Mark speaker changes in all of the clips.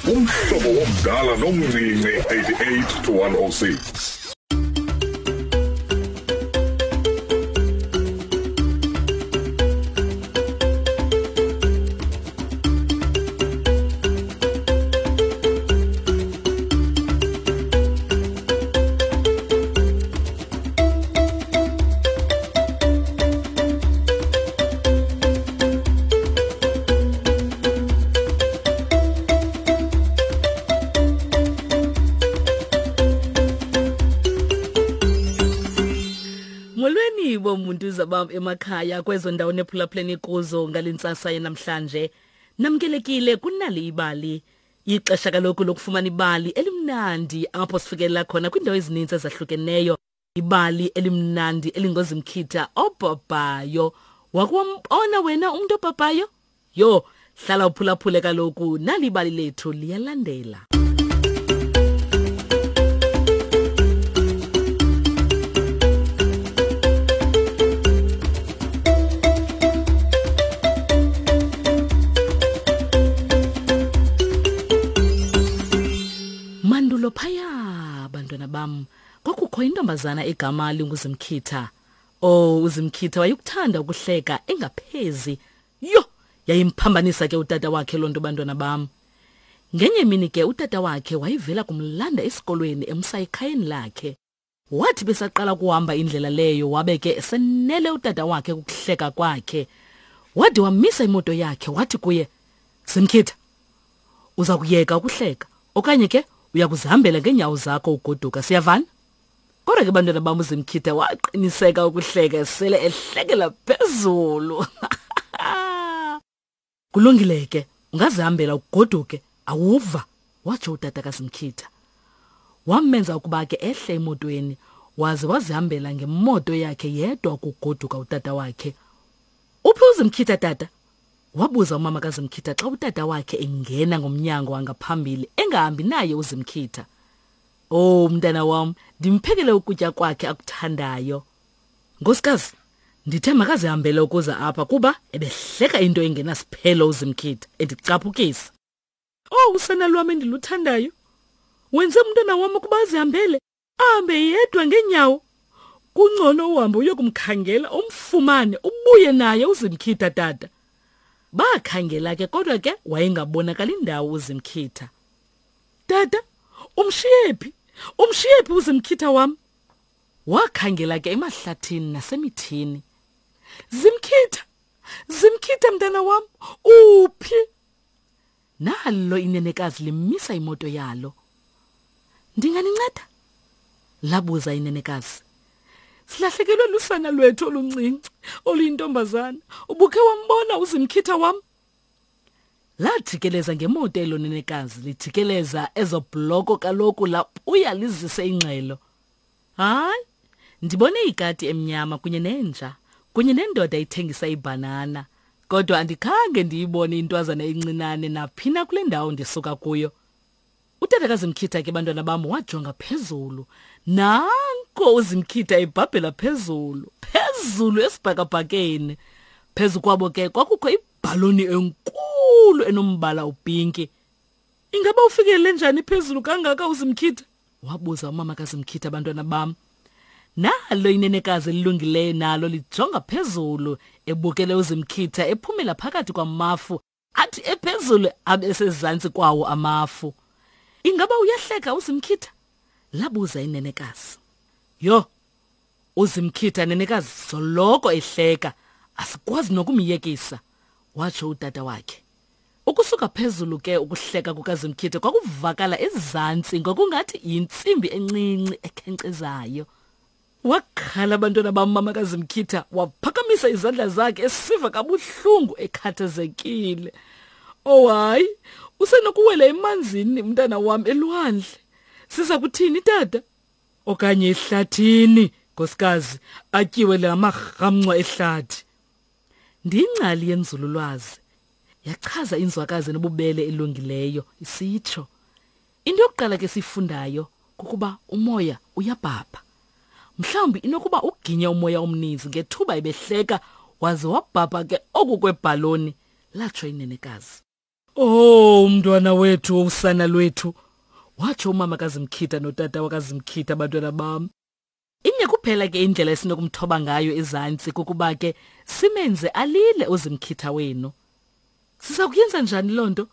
Speaker 1: Umhlobo womdala nomncinci 88 to 106.
Speaker 2: Molweni bomuntu zabam emakhaya kwezo ndawo nephulaphuleni kuzo ngalentsasa yanamhlanje. Namkelekile kunali ibali. Ixesha kaloku lokufumana ibali elimnandi apho sifikelela khona kwiindawo ezininzi ezahlukeneyo. Ibali elimnandi elingozimkhitha obhabhayo. Wakwambona wena umntu obhabhayo? Yho, hlala uphulaphule kaloku nali ibali lethu liyalandela. Mandulo phaya bantwana bam kwakukho intombazana egama linguZimkhitha. Oh, uZimkhitha wayekuthanda ukuhleka engaphezi. Yho, yayimphambanisa ke utata wakhe loo nto bantwana bam. Ngenye imini ke utata wakhe wayevela kumlanda esikolweni emsa ekhayeni lakhe. Wathi besaqala ukuhamba indlela leyo wabe ke esenele utata wakhe kukuhleka kwakhe. Wade wamisa imoto yakhe wathi kuye, Simkhitha, uza kuyeka ukuhleka okanye ke uya kuzihambela ngeenyawo zakho ugoduka siyavana? Kodwa ke bantwana bam uZimkhitha waqiniseka ukuhleka sele ehlekela phezulu. Kulungile ke, ungazihambela ugoduke, awuva, watsho utata kaZimkhitha. Wamenza ukuba ke ehle emotweni waze wazihambela ngemoto yakhe yedwa ukugoduka utata wakhe. Uphi uZimkhitha tata? Wabuza umama kaZimkhitha xa utata wakhe engena ngomnyango wangaphambili engahambi naye uZimkhitha. Oh mntana wam, ndimphekele ukutya kwakhe akuthandayo. Nkosikazi, ndithe makazihambele ukuza apha kuba ebehleka into engenasiphelo uZimkhitha endicaphukisa. Oh usana lwam endiluthandayo. Wenze umntwana wam ukuba azihambele, ahambe yedwa ngeenyawo. Kungcono uhambe uyokumkhangela umfumane ubuye naye uZimkhitha tata. Bakhangela ke kodwa ke wayengabonakali ndawo uZimkhitha. Tata, umshiye phi? Umshiye phi uZimkhitha wam? Wakhangela ke emahlathini nasemithini. Zimkhitha, Zimkhitha mntana wam, uphi? Nalo inenekazi limisa imoto yalo. Ndinganinceda? Labuza inenekazi. Silahlekelwe lusana lwethu oluncinci oluyintombazana. Ubukhe wambona uZimkhitha wam? Lajikeleza ngemoto elo nenekazi lijikeleza ezo bloko kaloku labuya lizise ingxelo. Hayi, ndibone ikati emnyama kunye nenja kunye nendoda ithengisa ibhanana kodwa andikhange ndiyibone intwazana encinane naphina kule ndawo ndisuka kuyo. Utata kaZimkhitha ke bantwana bam wajonga phezulu. Nanko uZimkhitha ebhabhela phezulu, phezulu esibhakabhakeni. Phezu kwabo ke kwakukho ibhaloni enkulu enombala upinki. Ingaba ufikele njani phezulu kangaka uZimkhitha? Wabuza umama kaZimkhitha bantwana bam. Nalo inenekazi elilungileyo nalo lijonga phezulu ebukele uZimkhitha ephumela phakathi kwamafu athi ephezulu abe sezantsi kwawo amafu. Ingaba uyahleka uZimkhitha? Labuza inenekazi. Yho, uZimkhitha nenekazi soloko ehleka, asikwazi nokumyekisa, watsho utata wakhe. Ukusuka phezulu ke ukuhleka kukaZimkhitha kwakuvakala ezantsi ngokungathi yintsimbi encinci ekhenkcezayo. Wakhala abantwana bam mama kaZimkhitha waphakamisa izandla zakhe esiva kabuhlungu ekhathazekile. Oh hayi, usenokuwela emanzini mntana wam elwandle. Siza kuthini tata? Okanye ehlathini, nkosikazi, atyiwe la marhamncwa ehlathi. Ndiyingcali yenzululwazi, yachaza inzwakazi enobubele elungileyo isitsho. Into yokuqala ke siyifundayo kukuba umoya uyabhabha. Mhlawumbi inokuba uginye umoya omninzi ngethuba ebehleka waze wabhabha ke oku kwebhaloni, latsho inenekazi. Oh, umntwana wethu, usana lwethu, watsho umama kaZimkhitha notata wakaZimkhitha, abantwana bam. Inye kuphela ke indlela esinokumthoba ngayo ezantsi kukuba ke simenze alile uZimkhitha wenu. Siza kuyenza njani loo nto?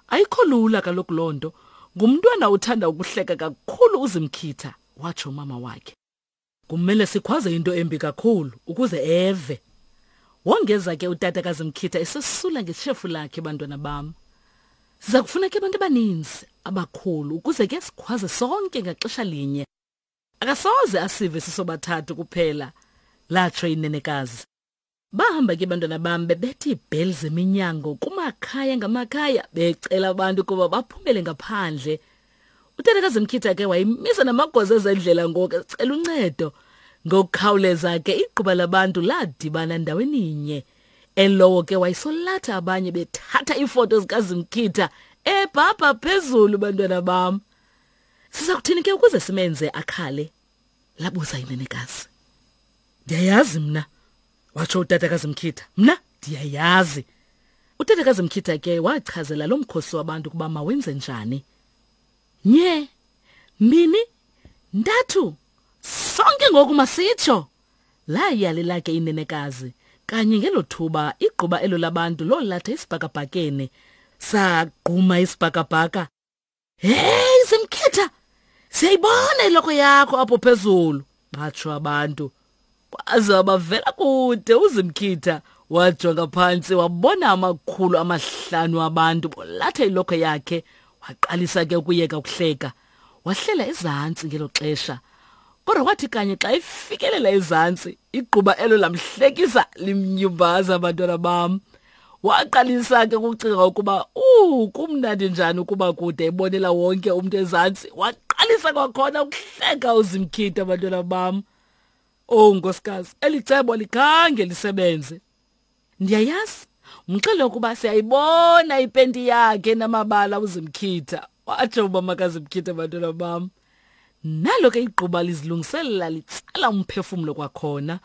Speaker 2: Ayikho lula kaloku loo nto. Ngumntwana othanda ukuhleka kakhulu uZimkhitha, watsho umama wakhe. Kumele sikhwaze into embi kakhulu ukuze eve. Wongeza ke utata kaZimkhitha esesula ngeshefu lakhe bantwana bam. Siza kufuna ke abantu abaninzi abakhulu ukuze ke sikhwaze sonke ngaxesha linye. Akasoze asive sisobathathu kuphela, latsho inenekazi. Bahamba ke bantwana bam bebetha iibheli zeminyango kumakhaya ngamakhaya becela abantu ukuba baphumele ngaphandle. Utata kaZimkhitha ke wayimisa namagosa ezendlela ngoku ecela uncedo. Ngokukhawuleza ke igquba labantu ladibana ndaweninye. Elowo ke wayesolatha abanye bethatha iifoto zikaZimkhitha ebhabha phezulu bantwana bam. Siza kuthini ke ukuze simenze akhale? Labuza inenekazi. Ndiyayazi mna, watsho utata kaZimkhitha. Mna ndiyayazi. Utata kaZimkhitha ke wachazela lo mkhosi wabantu ukuba mawenze njani. Nye, mbini, ntathu, sonke ngoku masitsho. Layalela ke inenekazi. Kanye ngelo thuba igquba elo labantu lolatha isibhakabhakeni. Sagquma isibhakabhaka. Hey Zimkhitha, siyayibona iloko yakho apho phezulu, batsho abantu. Kwaze wabavela kude uZimkhitha, wajonga phantsi wabona amakhulu amahlanu abantu bolatha iloko yakhe, waqalisa ke ukuyeka ukuhleka. Wahlela ezantsi ngelo xesha. Kodwa kwathi kanye xa ifikelela ezantsi, igquba elo lamhlekisa limnyumbaza abantwana bam. Waqalisa ke ukucinga ukuba kumnandi njani ukuba kude ebonela wonke umntu ezantsi. Waqalisa kwakhona ukuhleka uZimkhitha abantwana bam. Oh nkosikazi, eli cebo likhange lisebenze. Ndiyayazi, mxele ukuba siyayibona ipenti yakhe namabala uZimkhitha. Watsho umama kaZimkhitha abantwana bam. Nalo ke igquba lizilungiselela litsala umphefumlo kwakhona.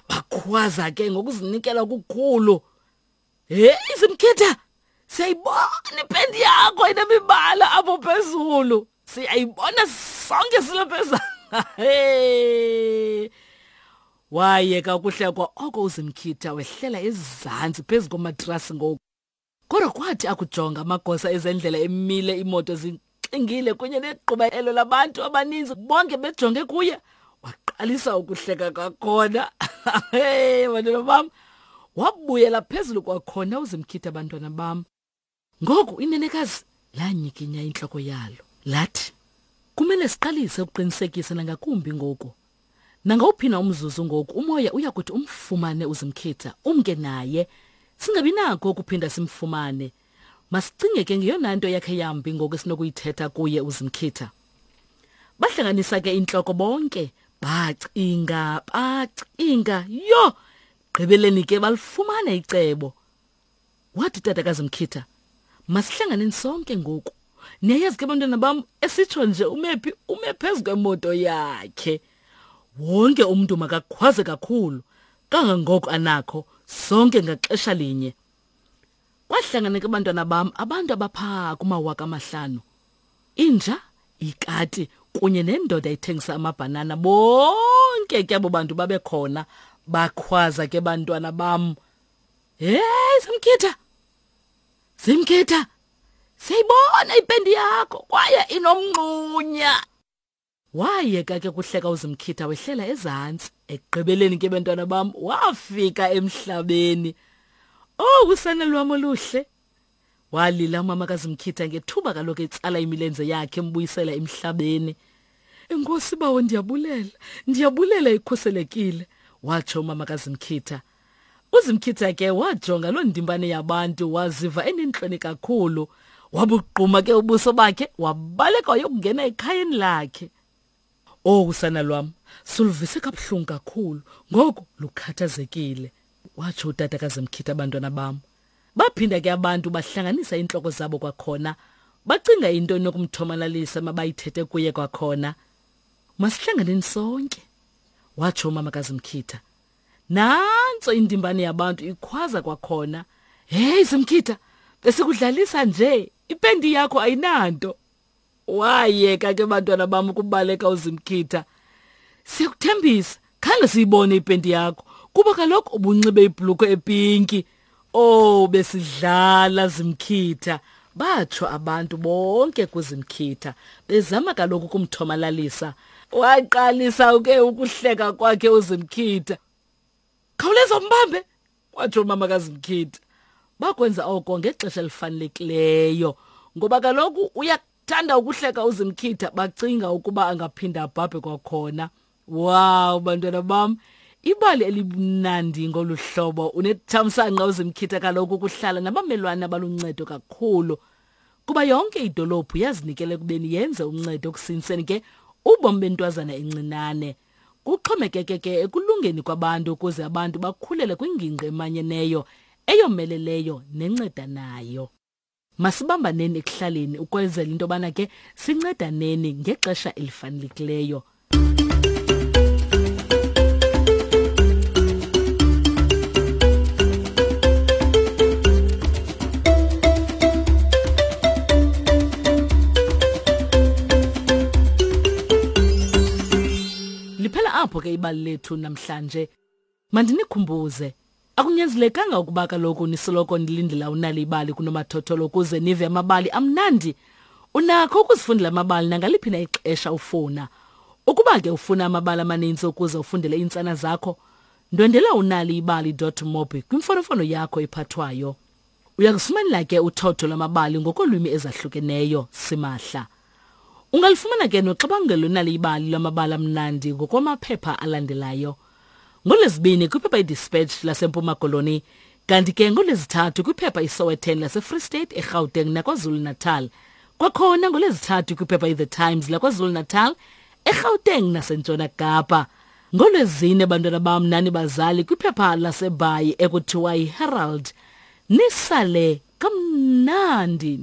Speaker 2: Bakhwaza ke ngokuzinikela okukhulu. Hey Zimkhitha, siyayibona ipendi yakho inemibala apho phezulu. Siyayibona sonke silapha. Hey. Wayeka ukuhlekwa oko uZimkhitha wehlela ezantsi phezu komatrasi ngoku. Kodwa kwathi akujonga amagosa ezendlela emile imoto zixingile kunye negquba elo labantu abaninzi bonke bejonge kuye, waqalisa ukuhleka kwakhona. Hey bantwana bam, wabuyela phezulu kwakhona uZimkhitha bantwana bam. Ngoku inenekazi lanyikinya intloko yalo lathi, kumele siqalise ukuqinisekisa nangakumbi ngoku. Nangawuphi na umzuzu ngoku umoya uya kuthi umfumane uZimkhitha, umke naye. Singabi nako ukuphinda simfumane. Masicinge ke ngeyona nto yakhe yambi ngoku esinokuyithetha kuye uZimkhitha. Bahlanganisa ke intloko bonke, bacinga, bacinga, yho! Gqibeleni ke balifumana icebo. Wathi utata kaZimkhitha, masihlanganeni sonke ngoku. Niyayazi ke bantwana bam, esitsho nje umephi ume phezu kwemoto yakhe. Wonke umntu makakhwaze kakhulu kangangoko anakho, sonke ngaxesha linye. Kwahlangana ke bantwana bam abantu abapha kumawaka amahlanu. Inja, ikati kunye nendoda ethengisa amabhanana, bonke ke abo bantu babekhona. Bakhwaza ke bantwana bam. Hey Zimkhitha, Zimkhitha, siyayibona ipendi yakho kwaye inomnqunya. Wayeka ke kuhleka uZimkhitha wehlela ezantsi. Ekugqibeleni ke bantwana bam wafika emhlabeni. Oh usana lwam oluhle. Walila umama kaZimkhitha ngethuba kaloku etsala imilenze yakhe embuyisela emhlabeni. Enkosi bawo, ndiyabulela, ndiyabulela ikhuselekile, watsho umama kaZimkhitha. UZimkhitha ke wajonga loo ndimbane yabantu waziva enentloni kakhulu. Wabugquma ke ubuso bakhe wabaleka wayokungena ekhayeni lakhe. Oh usana lwam, suluvise kabuhlungu kakhulu, ngoku lukhathazekile, watsho utata kaZimkhitha abantwana bam. Baphinda ke abantu bahlanganisa iintloko zabo kwakhona, bacinga into enokumthomalalisa mabayithethe kuye kwakhona. Masihlanganeni sonke, watsho umama kaZimkhitha. Nantso indimbane yabantu ikhwaza kwakhona. Hey Zimkhitha, besikudlalisa nje, ipendi yakho ayinanto. Wayeka ke bantwana bam ukubaleka uZimkhitha. Siyakuthembisa, khange siyibone ipenti yakho kuba kaloku ubunxibe ibhulukhwe epinki. Oh besidlala Zimkhitha. Batsho abantu bonke kuZimkhitha bezama kaloku ukumthomalalisa. Waqalisa ke ukuhleka kwakhe uZimkhitha. Khawuleza umbambe, watsho umama kaZimkhitha. Bakwenza oko ngexesha elifanelekileyo ngoba kaloku uyakuthanda ukuhleka uZimkhitha bacinga ukuba angaphinda abhabhe kwakhona. Wow bantwana bam, ibali elimnandi ngolu hlobo. Unethamsanqa uZimkhitha kaloku ukuhlala nabamelwane abaluncedo kakhulu. Kuba yonke idolophu yazinikela ekubeni yenze uncedo ekusinseni ke ubomi bentwazana encinane. Kuxhomekeke ke ekulungeni kwabantu ukuze abantu bakhulele kwingingqi emanyeneyo, eyomeleleyo nencedanayo. Masibambaneni ekuhlaleni ukwenzela into yobana ke sincedaneni ngexesha elifanelekileyo. Liphela apho ke ibali lethu namhlanje. Mandinikhumbuze, akunyanzelekanga ukuba kaloku nisoloko nilindela unali ibali kunomathotholo ukuze nive amabali amnandi. Unakho ukuzifundela amabali nangaliphi na ixesha ufuna. Ukuba ke ufuna amabali amaninzi ukuze ufundele iintsana zakho, ndwendela unaliibali.mobi kwimfonomfono yakho ephathwayo. Uyakufumanela ke uthotho lwamabali ngokolwimi ezahlukeneyo simahla. Ungalifumana ke noxabangelo nali ibali lwamabali amnandi ngokwamaphepha alandelayo. NgoLwezibini kwiphepha iDispatch laseMpuma Koloni, kanti ke ngoLwezithathu kwiphepha iSowetan laseFree State, eGauteng naKwaZulu-Natal. Kwakhona ngoLwezithathu kwiphepha iThe Times laKwaZulu-Natal, eGauteng naseNtshona Kapa. NgoLwezine bantwana bam nani bazali kwiphepha laseBhayi ekuthiwa yiHerald. Nisale kamnandi.